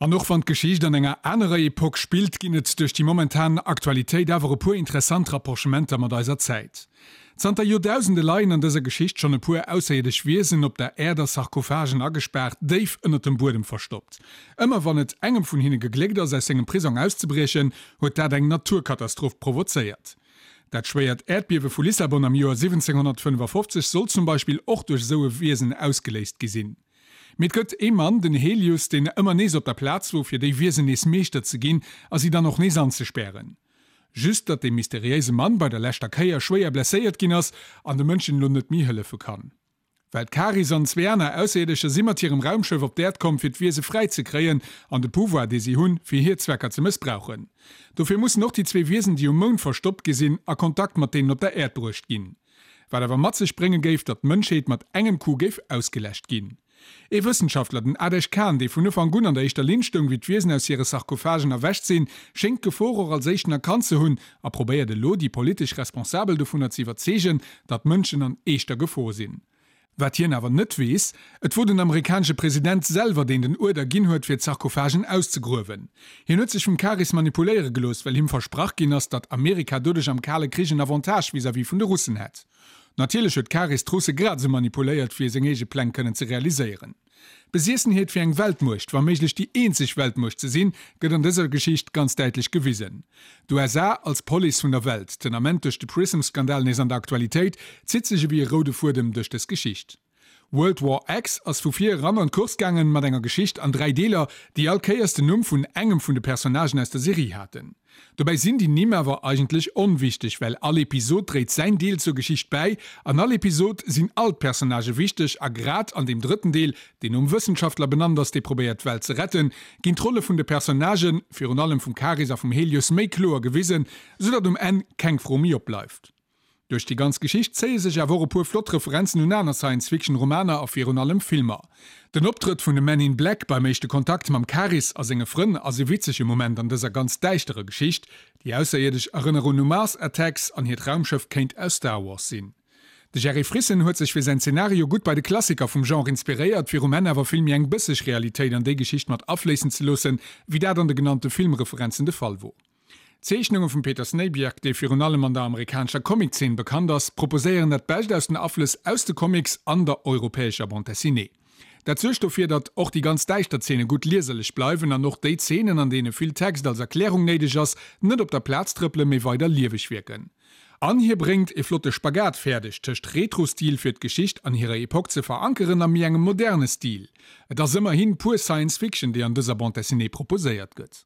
An och wann d'Geschicht an enger anerer Epoque spillt, ginn et duerch déi momentan Aktualitéit awer e puer interessant Rapprochementer mat eiser Zäit. Zanter Joerdausende leien an dëser Geschicht schonn e puer ausserierdesch Wiesen op der Äerd a Sarkophagen agespaart, déif ënnert dem Buedem verstoppt. Ëmmer wann et engem vun hinne gegléckt ass, aus sengem Prisong auszebriechen, huet dat eng Naturkatastroph provozéiert. Dat schwéiert Äerdbiewe vu Lissabon am Joer 1755 soll zum Beispill och duerch esou e Wiesen ausgeléist gi sinn. Mee et gëtt ee Mann, den Helius, deen ëmmer nees op der Plaz wor, fir déi Wiesen nees Meeschter ze ginn a si dann och nees anzespären. Just datt dee mysteriéise Mann bei der leschter Kéier schwéier blesséiert ginn ass an de Mënschen elo net méi hëllefe kann. Well d'Karis an zwee aner Ausserierdescher si mat hirem Raumschëff op d'Äerd komm fir d'Wiese fräi ze kréien an de Pouvoir dee si hunn, fir hir Zwecker ze mëssbrauchen. Dofir mussen och déi zwee Wiesen déi um Mound verstoppt gi sinn, a Kontakt mat deenen op der Äerd bruecht ginn. Wat awer mat sech brénge géif, datt d'Mënschheet mat engem Coup géif ausgeläscht ginn. Ee Wëssenschaftler, den Adesh Khan, dee vun Ufank un an der éischter Linn stoung, wéi d'Wiesen aus hire Sarkophagen erwächt sinn, schéngt d'Gefor och als éischten erkannt ze hunn a probéiert elo, déi politesch Responsabel dovunner ze iwwerzeegen, datt d'Mënschen an eeschter Gefor sinn. Wat hien awer net weess, Et wor den amerikanesche President selwer, deen den Uerder ginn huet, fir d'Sarkophagen auszegruewen. Hien huet sech vum Karis manipuléiere gelooss, well him versprach ginn ass, datt Amerika doduerch am Kale Krich en Avantage vis-à-vis vun de Russen hätt. Natierlech huet d'Karis d'Russe grad esou manipuléiert, fir seng eege Pläng kënnen ze realiséieren. D'Besiessenheet fir eng Weltmuecht, wa méiglech déi eenzeg Weltmuecht ze sinn, gëtt an dëser Geschicht ganz däitlech gewisen. D'USA als Police vun der Welt, den Ament duerch de Prism-Skandal nees an der Aktualitéit, zitt sech ewéi e roude Fuedem duerch dës Geschicht. World War X ass vu vir eran an d'Course gaangen, mat enger Geschicht an 3 Deeler, déi all Kéiers den Numm vun engem vun de Personnagen aus der Serie haten. Dobäi sinn déi Nimm awer eigentlech onwichteg, well all Episod dréit säin Deel zur Geschicht bäi. An all Episod sinn all d'Personnagë wichteg a grad an deem drëtten Deel, deen nom Wëssenschaftler benannt ass, dee probéiert d'Welt ze retten, ginn d'Rolle vun de Personnagen, virun allem vum Karis a vum Helios, méi kloer gewisen, soudatt um Enn keng Fro méi opbleift. Duerch déi ganz Geschicht zéie sech awer och e puer flott Referenzen un aner Science-Fiction-Romaner a virun allem Filmer. Den Optrëtt vun de Men in Black beim éischte Kontakt mam Karis a senge Frënn ass e witzege Moment an dëser ganz däischterer Geschicht. Déi Ausserierdesch erënneren u Mars Attacks an hiert Raumschëff kéint aus Star Wars sinn. De Jerry Frissen huet sech fir säin Zenario gutt bei de Klassiker vum Genre inspiréiert, fir um Enn awer vill méi eng bësseg Realitéit an déi Geschicht mat afléissen ze loossen, wéi dat an de genannte Filmreferenzen de Fall wor. D'Zeechnunge vum Peter Snejbjerg, dee virun allem an der amerikanescher Comiczeen bekannt ass, proposéieren dat Bescht aus den Aflëss aus de Comics an der europäescher Bande dessinée. Dat suergt dofir, datt och déi ganz däischter Zeene gutt lieserlech bleiwen an och déi Zeenen, an deene vill Text als Erklärung néideg ass, net op der Plaz trëppelen, mee weider lieweg wierken. An hie bréngt e flotte Spagat fäerdeg tëscht Retro-Stil fir d'Geschicht an hirer Epoque ze verankeren a méi engem moderne Stil. Et ass ëmmerhin pur Science Fiction, déi an dëser Bande dessinée proposéiert gëtt.